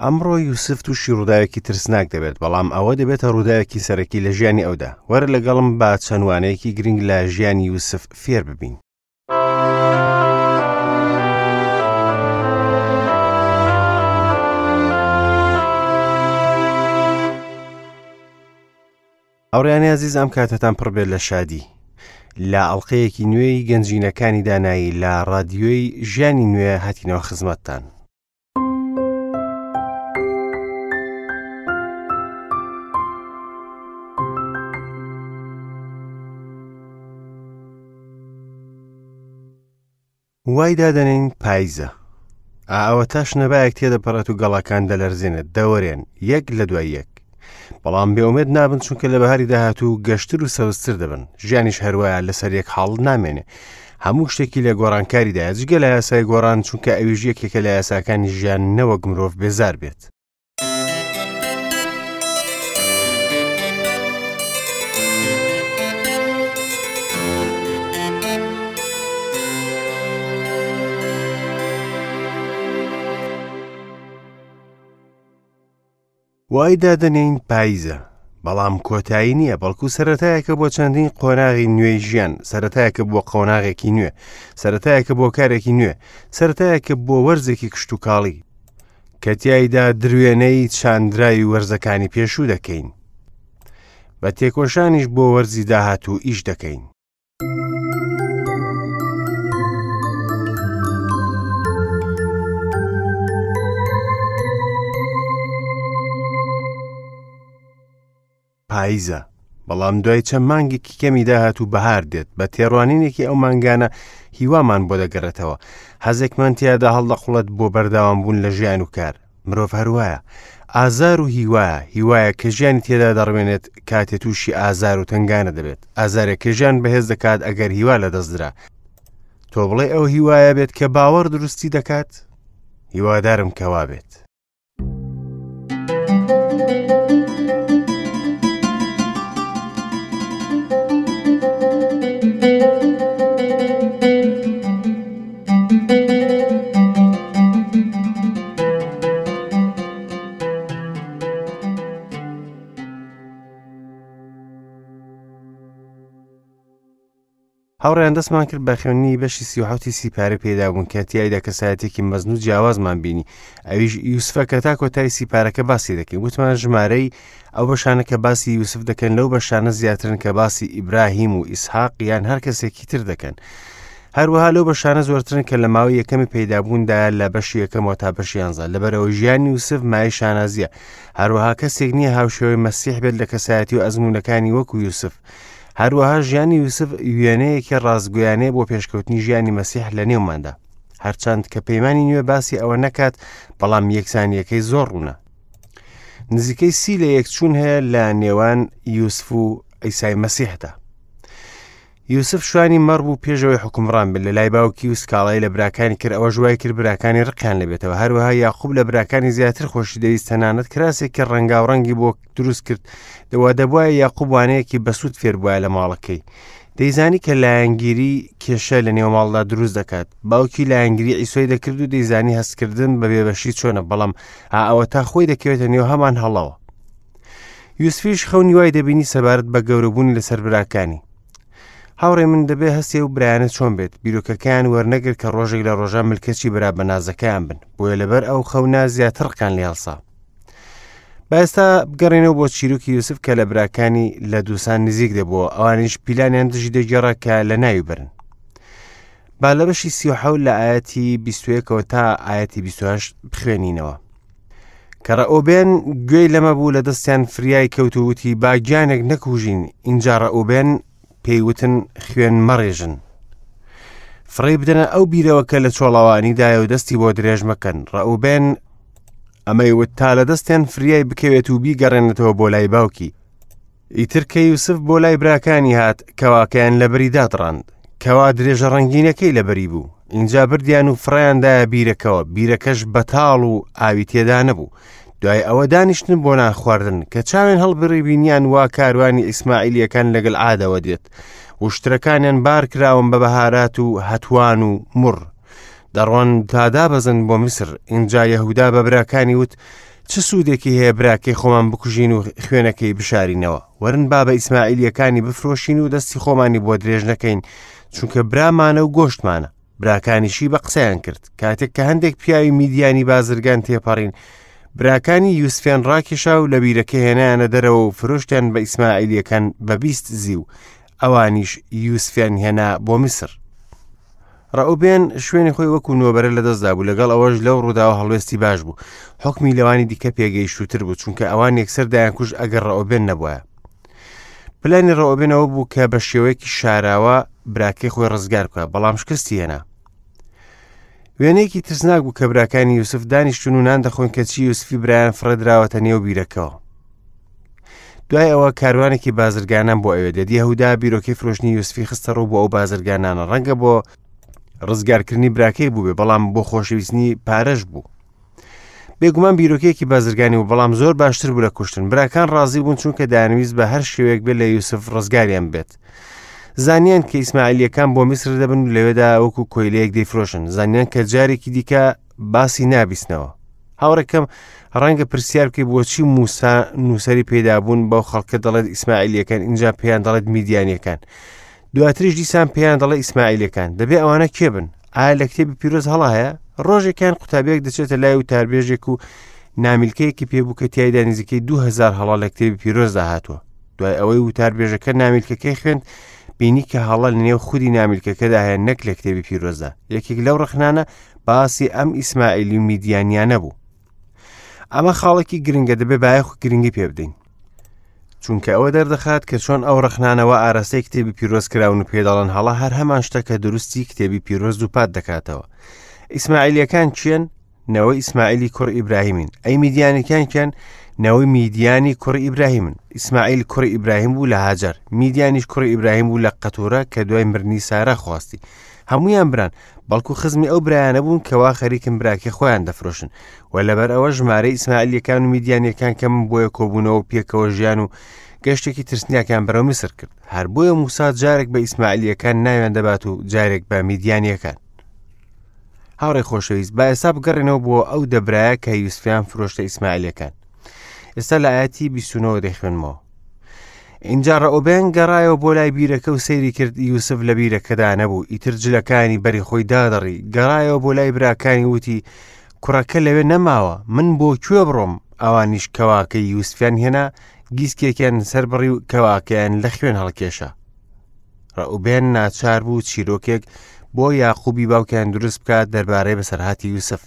ئەمڕۆ یوسف تووشی ڕووداوێکی ترسناک دەبێت، بەڵام ئەوە دەبێتە ڕووداوێکی سەرەکی لە ژیانی ئەودا. وەرە لەگەڵم با چەند وانەیەکی گرنگ لە ژیانی یوسف فێر ببین. هاوڕێیانی ئازیز ئەم کاتەتان پڕ بێت لە شادی لە ئەڵلقەیەکی نوێی گەنجینەکانی دانایی لە ڕادیۆی ژیانی نوێ هاتینەوە خزمەتتان. وای دادەنێین پایزە. ئا ئەوەتا شنەبایەک تێدەپەڕێت و گەڵاکان دەلەرزێنێت، دەوەرێن، یەک لە دوای یەک. بەڵام بێئومێد نابن چونکە لە بەهاری داهاتوو گەشتر و سەوزتر دەبن. ژیانیش هەروایە لەسەر یەک حاڵ نامێنێ. هەموو شتێکی لە گۆڕانکاریدایە جگە لە یاسای گۆڕان چونکە ئەویش یەکێکە لە یاساکانی ژیان نەوەک مرۆڤ بێزار بێت. وای دادەنێین پاییزە، بەڵام کۆتایی نییە، بەڵکو سەرەتایەکە بۆ چەندین قۆناغی نوێی ژیان، سەرەتایەکە بۆ قۆناغێکی نوێ، سەرەتایەکە بۆ کارێکی نوێ، سەرەتایەکە بۆ وەرزێکی کشتوکاڵی، کە تیایدا دروێنەی چاندراوی وەرزەکانی پێشوو دەکەین. بە تێکۆشانیش بۆ وەرزی داهاتوو ئیش دەکەین. پاییزە، بەڵام دوای چەند مانگێکی کەمی داهات و بەهار دێت، بە تێڕوانینێکی ئەو مانگانە هیوامان بۆ دەگەڕێتەوە، حەزێکمان تیادا هەڵدەقوڵێت بۆ بەردەوامبوون لە ژیان و کار. مرۆڤ هەروایە، ئازار و هیوایە، هیوایە کە ژیانی تێدا دەڕوێنێت کاتێ تووشی ئازار و تەنگانە دەبێت، ئازارێک کە ژیان بەهێز دەکات ئەگەر هیوا لەدەستدرا. تۆ بڵێ ئەو هیوایە بێت کە باوەڕ دروستی دەکات؟ هیوادارم کە وابێت. هاوڕێیان دەستمان کرد بە خوێندنی بەشی 37 سیپارە پێدا بوون کە تیایدا کەسایەتێکی مەزن و جیاوازمان بینی ئەویش یوسفە کە تا کۆتایی سیپارەکە باسی دەکەین وتمان ژمارەی ئەو بەشانە کە باسی یوسف دەکەن لەو بەشانە زیاترن کە باسی ئیبراهیم و ئیسحاق یان هەر کەسێکی تر دەکەن هەروەها لەو بەشانە زۆرترن کە لە ماوەی یەکەمی پەیدابووندا لە بەشی یەکەمەوە تا بەشی یانزە لەبەرەوە ژیانی یوسف مای شانازیە هەروەها کەسێک نییە هاوشێوەی مەسیح بێت لە کەسایەتی و ئەزموونەکانی وەکو یوسف هەروەها ژیانی یوسف وێنەیەکی ڕاستگویانەیە بۆ پێشکەوتنی ژیانی مەسیح لە نێوماندا هەرچەند کە پەیمانی نوێ باسی ئەوە نەکات بەڵام یەکسانیەکەی زۆر ڕوونە نزیکەی سی لە یەکچوون هەیە لە نێوان یوسف و ئیسای مەسیحدا یوسف شوانی مەڕ بوو پێشەوەی حکومڕان بێت لە لای باوکی و سکاڵای لە براکانی کرد ئەوەش وای کرد براکانی ڕقیان لەبێتەوە هەروەها یاقوب لە براکانی زیاتر خۆشی دەویست تەنانەت کراسێکی ڕەنگاوڕەنگی بۆ دروست کرد دەوا دەبواە یاقوب وانەیەکی بەسوود فێر بووە لە ماڵەکەی دەیزانی کە لایەنگیری کێشە لە نێو ماڵدا دروست دەکات باوکی لایەنگری ئیسۆی دەکرد و دەیزانی هەستکردن بە بێبەشی چۆنە بەڵام ئەوە تا خۆی دەکەوێتە نێو هەمان هەڵەوە یوسفیش خەونی وای دەبینی سەبارەت بە گەورەبوونی لەسەر براکانی. هاوڕێ من دەبێ هەستێ و برایانە چۆن بێت بیرۆکەکەیان وەرنەگر کە ڕۆژێک لە ڕۆژان ملکەچی برا بەنازەکەیان بن بۆیە لەبەر ئەو خەونە زیاتر ڕقیان لێ هەڵسا. با ئێستا بگەڕێنەوە بۆ چیرۆکی یوسف کە لە براکانی لە دووسان نزیک دەبووە ئەوانیش پیلانیان دژی دەگێڕا کە لە ناوی برن. با لە بەشی 37 لە ئاەتی 21ەوە تا ئاەتی 28 بخوێنینەوە. کە ڕەئوبێن گوێی لەمە بوو لە دەستیان فریای کەوت و وتی با گیانێک نەکوژین ئینجا ڕەئوبێن پێی وتن خوێن مەڕێژن فڕێی بدەنە ئەو بیرەوە کە لە چۆڵەوانیدایە و دەستی بۆ درێژ مەکەن ڕەئوبێن ئەمەی وت تا لە دەستیان فریای بکەوێت و بیگەڕێنێتەوە بۆ لای باوکی ئیتر کە یوسف بۆ لای براکانی هات کەواکەیان لەبەری دادڕاند کەوا درێژە ڕەنگینەکەی لەبەری بوو ئینجا بردیان و فڕیاندایە بیرەکەوە بیرەکەش بەتاڵ و ئاوی تێدا نەبوو دوای ئەوە دانیشتن بۆ نان خواردن کە چاوێن هەڵبڕی بینیان وا کاروانی ئیسماعیلیەکان لەگەل عادەوە دێت وشترەکانیان بار کراون بە بەهارات و هەتوان و مڕ. دەڕۆن تا دابەزن بۆ میسر. ئینجا یەهودا بە براکانی وت، چ سوودێکی هەیە براکەی خۆمان بکوژین و خوێنەکەی بشارینەوە؟ وەرن با بە ئیسماعیلییەکانی بفرۆشین و دەستی خۆمانی بۆ درێژ نەکەین، چونکە برامانە و گۆشتمانە. براکانیشی بە قسەیان کرد. کاتێک کە هەندێک پیاوی میدیانی بازرگان تێپەڕین، براکانی یوسفیان ڕاکێشا و لە بیرەکە هێنایانە دەرەوە و فرۆشتیان بە ئیسماعیلییەکان بە 20 زیو. ئەوانیش یوسفیان هێنا بۆ میسر. ڕەئوبێن شوێنی خۆی وەکو نۆبەرە لەدەستدا بوو، لەگەڵ ئەوەش لەو ڕووداوە هەڵوێستی باش بوو. حوکمی لەوانی دیکە پێگەیشتووتر بوو، چونکە ئەوان یەکسەر دەیانکوشت ئەگەر ڕەئوبێن نەبوایە. پلانی ڕەئوبێن ئەوە بوو کە بە شێوەیەکی شاراوە براکەی خۆی ڕزگار بکات، بەڵام شکستی هێنا. وێنەیەکی ترسناک بوو کە براکانی یوسف دانیشتون و نان دەخۆن کەچی یوسفی برایان فڕێدراوەتە نێو بیرەکەوە. دوای ئەوە کاروانێکی بازرگانان بۆ ئەوێ دێت یەهودا بیرۆکەی فرۆشتنی یوسفی خستە ڕوو بۆ ئەو بازرگانانە ڕەنگە بۆ ڕزگارکردنی براکەی بووبێ بەڵام بۆ خۆشەویستنی پارەش بوو بێگومان بیرۆکەیەکی بازرگانی و بەڵام زۆر باشتر بوو لە کوشتن براکان ڕازی بوون چونکە دانویست بە هەر شێوەیەک بێت لە یوسف ڕزگاریان بێت زانیان کە ئیسماعیلیەکان بۆ میسر دەبن و لەوێدا وەکو کۆیلەیەک دەیفرۆشن زانیان کە جارێکی دیکە باسی نابیستنەوە هاوڕێکەم ڕەنگە پرسیار بکەی بۆچی موسا نووسەری پەیدابوون بەو خەڵکە دەڵێت ئیسماعیلیەکان اینجا پێیان دەڵێت میدیانیەکان دواتریش دیسان پێیان دەڵێ ئیسماعیلەکان دەبێ ئەوانە کێ بن ئایا لە کتێبی پیرۆز هەڵا هەیە ڕۆژێکیان قوتابیەک دەچێتە لای وتاربێژێک و نامیلکەیەکی پێبوو کە تایدا نزیکەی 2000 هەڵا لە کتێبی پیرۆزدا هاتووە دوای ئەوەی وتاربێژەکە نامیلکەکەی خوێند بینی کە هەڵە لە نێو خودی نامیلکەکەدا هەیە نەک لە کتێبی پیرۆزدا یەکێک لەو ڕخنانە باسی ئەم ئیسماعیلی و میدیانیانە بوو ئەمە خاڵێکی گرنگە دەبێ بایەخ و گرنگی پێ بدەین چونکە ئەوە دەردەخات کە چۆن ئەو ڕخنانەوە ئاراستەی کتێبی پیرۆز کراون و پێدەڵن هەڵە هەر هەمان شتە کە دروستی کتێبی پیرۆز دووپات دەکاتەوە ئیسماعیلیەکان چێن نەوەی ئیسماعیلی کوڕ ئیبراهیمین ئەی میدیانەکان کێن نەوەی میدیانی کوڕی ئیبراهیمن ئیسماعیل کوڕی ئیبراهیم بوو لە هاجەر میدیانیش کوڕی ئیبراهیم بوو لە قەتورە کە دوای مردنی سارا خواستی هەمویان بران بەڵکو خزمی ئەو برایانە بوون کەوا خەریکن براکەی خۆیان دەفرۆشن و لەبەر ئەوە ژمارەی ئیسماعیلیەکان و میدیانیەکان کەم بۆیە کۆبوونەوە و پێکەوە ژیان و گەشتێکی ترسناکیان بەرەو میسر کرد هەر بۆیە موسا جارێک بە ئیسماعیلیەکان ناویان دەبات و جارێک بە میدیانیەکان هاوڕێ خۆشەویست با ئێستا بگەڕێنەوە بۆ ئەو دەبرایە کە یوسفیان فرۆشتە ئیسماعیلەکان ئێستا لە ئاەتی 29 دەخوێنمەوە اینجا ڕەئوبێن گەڕایەوە بۆ لای بیرەکە و سەیری کرد یوسف لە بیرەکەدا نەبوو ئیتر جلەکانی بەری خۆی دادڕی گەڕایەوە بۆ لای براکانی وتی کوڕەکە لەوێ نەماوە من بۆ کوێ بڕۆم ئەوانیش کەواکەی یوسفیان هێنا گیسکێکیان سەربڕی و کەواکەیان لە خوێن هەڵکێشا ڕەئوبێن ناچار بوو چیرۆکێک بۆ یاقوبی باوکیان دروست بکات دەربارەی بەسەرهاتی یوسف.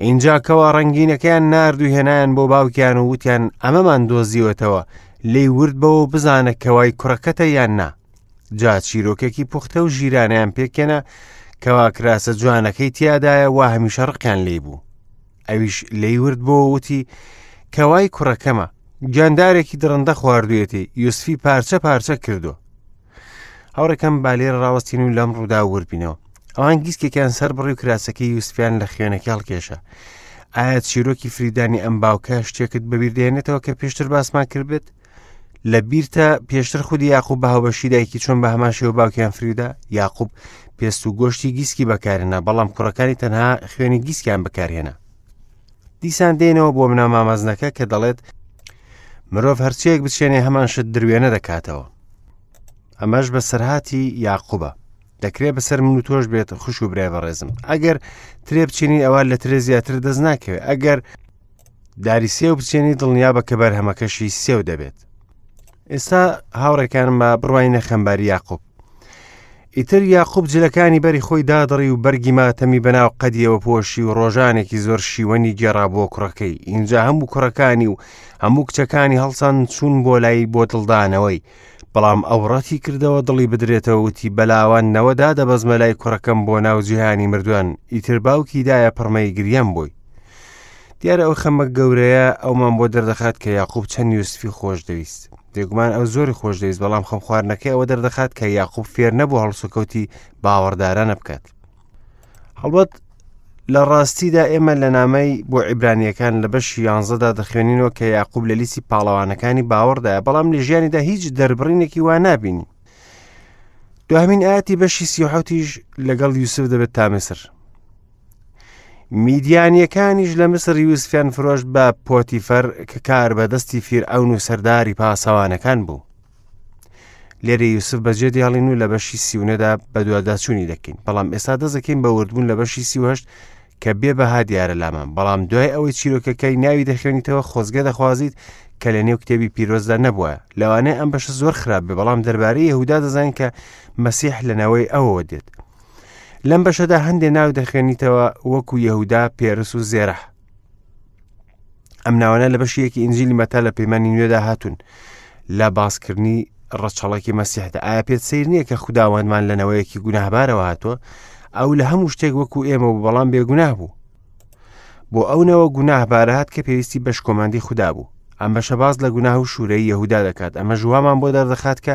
ئینجا کەوا ڕەنگینەکەیان نارد و هێنایان بۆ باوکیان و وتیان ئەمەمان دۆزیوەتەوە لێی ورد بەوە و بزانە کەوای کوڕەکەتە یان نا جا چیرۆکێکی پوختە و ژیرانەیان پێکێنە کەوا کراسە جوانەکەی تیادایە وا هەمیشە ڕقیان لێی بوو ئەویش لێی ورد بۆ وتی کەوای کوڕەکەمە گیاندارێکی دڕندە خواردوێتی یوسفی پارچە پارچە کردو هاوڕێکەم با لێرە ڕاوەستین و لەم ڕوودا وردبینەوە ئەوان گیسکێکیان سەر بڕی و کراسەکەی یوسفیان لە خوێنەکە هەڵکێشا ئایا چیرۆکی فریدانی ئەم باوکە شتێکت بەبیر دێنێتەوە کە پێشتر باسمان کردبێت لە بیرتە پێشتر خودی یاقوب بە هاوبەشی دایکی چۆن بە هەمان شێوە باوکیان فریودا یاقوب پێست و گۆشتی گیسکی بەکارهێنا بەڵام کوڕەکانی تەنها خوێنی گیسکیان بەکارهێنا دیسان دێنەوە بۆ بنەما مەزنەکە کە دەڵێت مرۆڤ هەرچیەک بچێنێ هەمان شت دروێنە دەکاتەوە ئەمەش بەسەرهاتی یاقوبە دەکرێت بەسەر من و تۆش بێت خوش و برای بەڕێزم ئەگەر ترێ بچینی ئەوە لە ترێ زیاتر دەست ناکەوێت ئەگەر داری سێو بچێنی دڵنیا بە کە بەرهەمەکەشی سێو دەبێت ئێستا هاوڕێکانم بە بڕوای نەخەمباری یاقوب ئیتر یاقوب جلەکانی بەری خۆی دادڕی و بەرگی ماتەمی بەناو قەدیەوە پۆشی و ڕۆژانێکی زۆر شیوەنی گێڕا بۆ کوڕەکەی ئینجا هەموو کوڕەکانی و هەموو کچەکانی هەڵسان چوون بۆ لای بۆ دڵدانەوەی بەڵام ئەو ڕەتی کردەوە دڵی بدرێتەوە وتی بەلاواندنەوە دادەبەزمە لای کوڕەکەم بۆ ناو جیهانی مردوان ئیتر باوکی دایە پڕمەی گریان بۆی دیارە ئەو خەمە گەورەیە ئەومان بۆ دەردەخات کە یاقوب چەند یوسفی خۆش دەویست بێگومان ئەو زۆری خۆش دەویست بەڵام خەم خواردنەکەی ئەوە دەردەخات کە یاقوب فێر نەبوو هەڵسوکەوتی باوەڕدارانە بکات هەڵبەت لە ڕاستیدا ئێمە لە نامەی بۆ عیبرانیەکان لە بەشی یانزەدا دەخوێنینەوە کە یاقوب لە لیستی پاڵەوانەکانی باوەڕدایە بەڵام لە ژیانیدا هیچ دەربڕینێکی وا نابینی دوهمین ئاەتی بەشی سیحوتیش لەگەڵ یوسف دەبێت تا میسر. میدیانییەکانیش لە میسر یوسفیان فرۆشت بە پۆتیفەر کە کاربەدەستی فیرعەون و سەرداری پاسەوانەکان بوو. لێرە یوسف بەجێ دێڵین و لە بەشی سیونەدا بەدواداچوونی دەکەین بەڵام ئێستا دەزەکەین بە وردبوون لە بەشی 38 کە بێ بەها دیارە لامان بەڵام دوای ئەوەی چیرۆکەکەی ناوی دەخوێنیتەوە خۆزگە دەخوازیت کە لە نێو کتێبی پیرۆزدا نەبووە لەوانەیە ئەم بەشە زۆر خراپ بێ بەڵام دەربارەی یەهودا دەزانین کە مەسیح لە نەوەی ئەوەوە دێت لەم بەشەدا هەندێ ناو دەخوێنیتەوە وەکو یەهودا پێرس و زێرح ئەم ناوانە لە بەشی یەکی ئینجیلی مەتا لە پەیمانی نوێدا هاتوون لە باسکردنی ڕەچەڵەکی مەسیحدا ئایا پێت سیر نییە کە خوداوەندمان لە نەوەیەکی گوناهبارەوە هاتووە ئەو لە هەموو شتێک وەکو ئێمە بوو بەڵام بێگوناه بوو بۆ ئەو نەوە گوناهبارە هات کە پێویستی بە شکۆمەندی خودا بوو ئەم بەشە باس لە گوناه و شوورەی یەهودا دەکات ئەمە ژوامان بۆ دەردەخات کە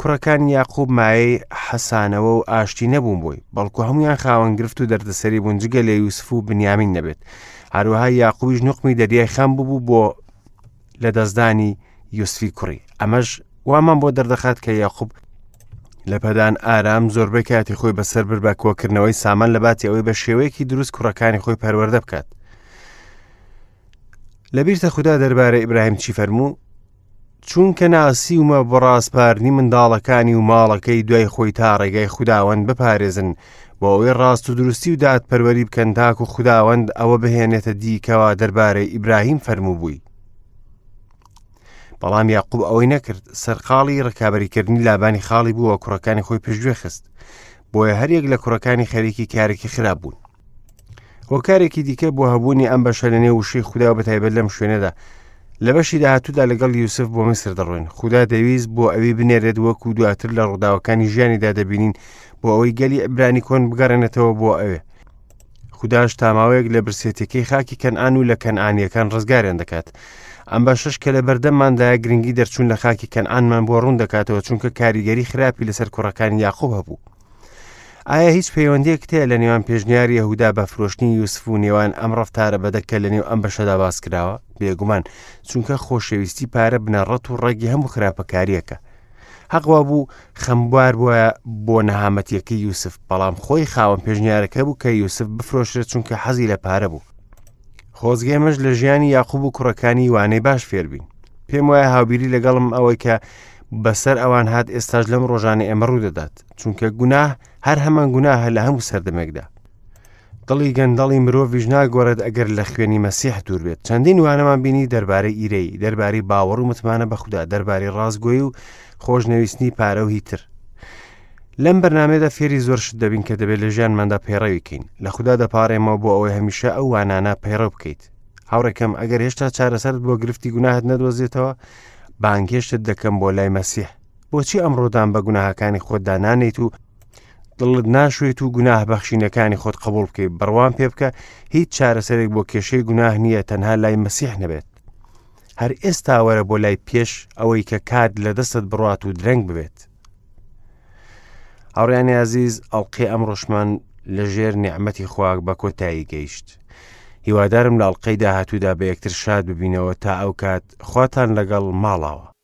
کوڕەکانی یاقوب مایەی حەسانەوە و ئاشتی نەبوون بۆی، بەڵکو هەموویان خاوەن گرفت و دەردەسەری بوون جگە لە یوسف و بنیامین نەبێت. هەروەها یاقوبیش نوقمی دەریای خەم ببوو بۆ لەدەستدانی یوسفی کوڕی. ئەمەش وامان بۆ دەردەخات کە یاقوب لە پەدان ئارام زۆربەی کاتی خۆی بەسەر برد بە کۆکردنەوەی سامان لە باتی ئەوەی بە شێوەیەکی دروست کوڕەکانی خۆی پەروەردە بکات. لەبیرتە خودا دەربارەی ئیبراهیم چی فەرموو؟ چونکە ناسیومە بۆ ڕاسپاردنی منداڵەکانی و ماڵەکەی دوای خۆی تا ڕێگای خوداوەند بپارێزن بۆ ئەوەی ڕاست و دروستی و دادپەروەری بکەن تاکو خوداوەند ئەوە بهێنێتە دی کەوا دەربارەی ئیبراهیم فەرمووبووی. بەڵام یاقوب ئەوەی نەکرد سەرقاڵی ڕکابەریکردنی لابانی خاڵی بووە کوڕەکانی خۆی پشتگوێ خست بۆیە هەریەک لە کوڕەکانی خەریکی کارێکی خراپ بوون. هۆکارێکی دیکە بۆ هەبوونی ئەم بەشە لە نێو وشەی خودا و بەتایبەت لەم شوێنەدا لە بەشی داهاتوودا لەگەڵ یوسف بۆ میسر دەڕۆین خودا دەویست بۆ ئەوی بنێرێت وەکو دواتر لە ڕووداوەکانی ژیانیدا دەبینین بۆ ئەوەی گەلی عیبرانی کۆن بگەڕێنێتەوە بۆ ئەوێ خوداش تاماوەیەک لە برسێتەکەی خاکی کەنئان و لە کەنئانیەکان ڕزگاریان دەکات ئەم بەشەش کە لە بەردەمماندایە گرنگی دەرچوون لە خاکی کەنئانمان بۆ ڕوون دەکاتەوە چونکە کاریگەری خراپی لەسەر کوڕەکانی یاقوب هەبوو ئایا هیچ پەیوەندیەکت هەیە لە نێوان پێشنیاری یەهودا بە فرۆشتنی یوسف و نێوان ئەم ڕەفتارە بەدە کە لە نێو ئەم بەشەدا باس کراوە؟ بێگومان، چونکە خۆشەویستی پارە بنەڕەت و ڕەگی هەموو خراپەکارییەکە. حەق وابوو خەمبار بوایە بۆ نەهامەتیەکەی یوسف، بەڵام خۆی خاوەن پێشنیارەکە بوو کە یوسف بفرۆشرێت چونکە حەزی لە پارە بوو. خۆزگە ئێمەش لە ژیانی یاقوب و کوڕەکانی وانەی باش فێربین. پێم وایە هاوبیری لەگەڵم ئەوەی کە بەسەر ئەوان هات ئێستاش لەم ڕۆژانە ئێمە ڕوودەدات. چونکە گوناه هەر هەمان گوناهە لە هەموو سەردەمێکدا دڵی گەندەڵی مرۆڤیش ناگۆڕێت ئەگەر لە خوێنی مەسیح دوور بێت چەندین وانەمان بینی دەربارەی ئیرەی دەربارەی باوەڕ و متمانە بە خودا دەربارەی ڕاستگۆی و خۆشنەویستنی پارە و هیتر لەم بەرنمەیەدا فێری زۆر شت دەبین کە دەبێت لە ژیانماندا پەیڕەوی کەین لە خودا دەپارێمەوە بۆ ئەوەی هەمیشە ئەو وانانە پەیڕەو بکەیت هاوڕێکەم ئەگەر هێشتا چارەسەرت بۆ گرفتی گوناهت نەدۆزێتەوە بانگهێشتت دەکەم بۆ لای مەسیح بۆچی ئەمڕۆ دان بە گوناهەکانی خۆتدا نانێیت و دڵت ناشوێت و گوناه بەخشینەکانی خۆت قبول بکەیت بڕوام پێ بکە هیچ چارەسەرێک بۆ کێشەی گوناه نییە تەنها لای مەسیح نەبێت هەر ئێستا وەرە بۆ لای پێش ئەوەی کە کات لە دەستت بڕات و درەنگ ببێت هاوڕیانی ئازیز ئەڵلقەی ئەمڕۆشمان لە ژێر نیعممەتی خواک بە کۆتایی گەیشت هیوادارم لە ئەڵلقەی داهاتوودا بە یەکتر شاد ببینەوە تا ئەو کات خواتان لەگەڵ ماڵاوە.